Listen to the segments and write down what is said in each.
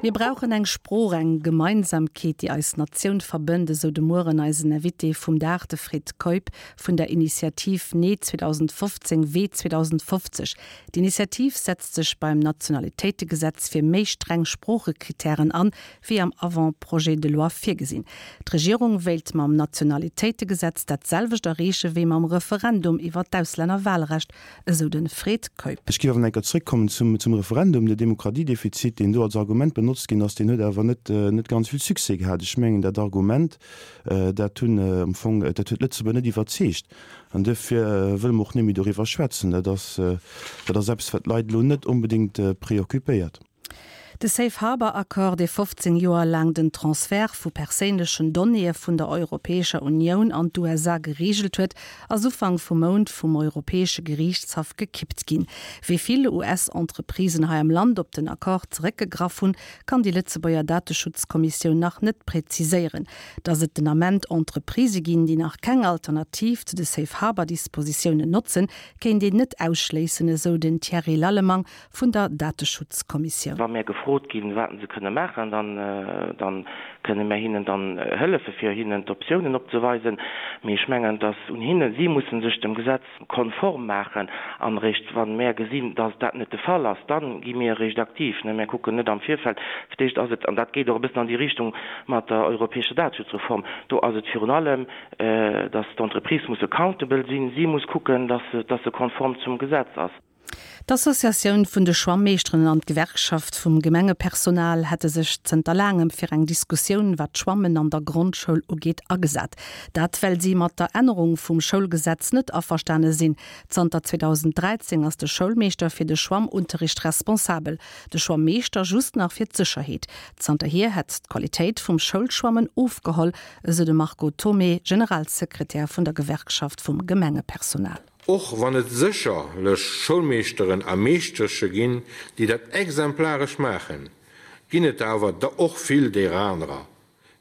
Mir brauchen eng Sprooch, eng Gemeinsamkeet, déi eis Natioun verbënnt, esou de Mueren eisen Invité vum Dag, de Fred Keup vun der Initiativ Nee 2015, Wee 2050. D'Initiativ setzt sech beim Nationalitéitegesetz fir méi streng Sproochekrittären an, wéi am Avant-projet de loi virgesinn. D'Regierung wéilt mam Nationalitéitegesetz dat selwecht erreeche wéi mam Referendum iwwer d'Auslännerwahlrecht, esou de Fred Keup. Ech géif awer nach eng Kéier zréckkommen zum, zum Referendum. De Demokratiedefizit, deen do als Argument benotzt ginn ass, deen huet awer net, net ganz vill Succès gehat. Ech mengen, dat Argument, dat hunn am Fong, dat huet d'Lëtzebuerger net iwwerzeegt. An duerfir wëlle mer och net méi doriwwer schwätzen. Dat ass, dat ass eppes, wat d'Leit elo net onbedéngt préoccupéiert. De Safe Harbour Accord, dee 15 Joer laang den Transfert vu perséinlechen Donnéeë vun der Europäescher Unioun an d'USA gereegelt huet, ass Ufank vum Mount vum Europäesche Geriichtshaff gekippt ginn. Wéi vill US-Entreprisen hei am Land op den Accord zeréckgegraff hunn, kann déi Lëtzebuerger Dateschutzkommissioun nach net präziséieren. Datt et den Ament Entreprisë ginn, déi nach keng Alternativ zu de Safe Harbour Dispositiounen notzen, kéint een net ausschléissen, esou den Thierry Lallemang vun der Dateschutzkommissioun. Wa mär gefrot ginn, wat se kënne maachen, dann, dann kënne mär hinnen dann hëllefe fir hinnen d'Optiounen opzeweisen. Mee ech mengen, et ass un hinnen, si mussen sech dem Gesetz konform maachen. An eréischt wa mär gesinn, dass dat net de Fall ass, dann gi mir eréischt aktiv. Mär kucken net am Virfeld. Fir d'éischt ass et, an dat geet och e bëssen an déi Richtung mat der europäescher Dateschutzreform, do ass et virun allem, dass d'Entreprise muss accountable sinn, si muss kucken, dass se, dass se konform zum Gesetz ass. D'Associatioun vun de Schwammeeschteren an d'Gewerkschaft vum Gemengepersonal hätte sech zënter laangem fir eng Diskussioun, wat d'Schwammen an der Grondschoul ugeet, agesat. Dat well si mat der Ännerung vum Schoulgesetz net averstane sinn. Zanter 2013 ass de Schoulmeeschter fir de Schwammunterricht responsabel, de Schwammeeschter just nach fir d'Sécherheet. Zanterhier hätt d'Qualitéit vum Schoulschwammen ofgeholl, esou de Marco Thomé, Generalsekretär vun der Gewerkschaft vum Gemengepersonal. Och wann et sécherlech Schoulmeeschteren a Meeschtersche ginn, déi dat exemplaresch maachen, ginn et der awer der och vill deerer anerer,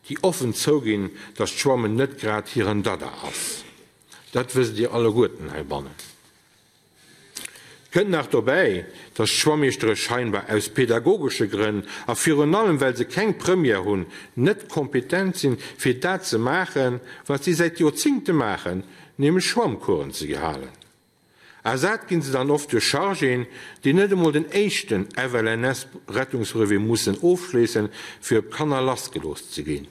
déi offen zouginn, dass d'Schwammen net grad hiren Dada ass. Dat wësst Dir alleguerten heibannen. Kënnt nach dobäi, dass d'Schwammeeschtere scheinbar aus pedagogesche Grënn a virun allem well se keng Première hunn, net kompetent sinn, fir dat ze maachen, wat si säit Joerzingte maachen, nämlech Schwammcoursen ze halen. Ersat ginn se dann oft duerch Chargéen, déi net emol den éischten FLNS-Rettungsbrevet mussen ofschléissen, fir op d'Kanner lassgelooss ze ginn.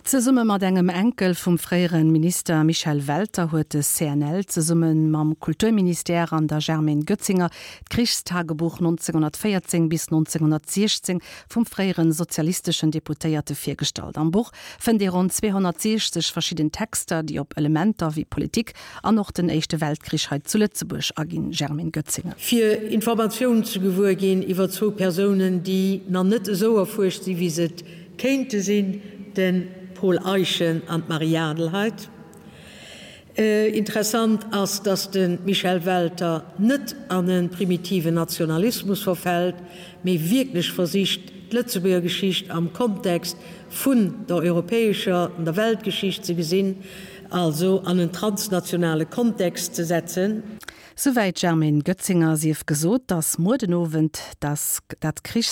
Zesumme mat engem Enkel vum fréiere Minister Michel Welter huet de CNL zesumme mam Kulturministère an der Germaine Goetzinger d'Krichstagebuch 1914 bis 1916 vum fréiere sozialisteschen Deputéierte virgestallt. Am Buch fënnt ee ronn 260 verschidden Texter, déi op Elementer wéi Politik an och den Éischte Weltkrich hei zu Lëtzebuerg aginn. Germaine Goetzinger. Fir Informatiounen ze gewuer ginn iwwer zwou Persounen, déi nach net esou erfuerscht sinn, wéi se et kéinte sinn, de Paul Eyschen an d'Marie Adelheid. Interessant ass, datt de Michel Welter net an e primitiven Nationalismus verfält, mee wierklech versicht, d'Lëtzebuerger Geschicht am Kontext vun der europäescher an der Weltgeschicht ze gesinn, also an en transnationale Kontext ze setzen. Souwäit d'Germaine Goetzinger. Sief gesot, datt muer den Owend dat Krichs.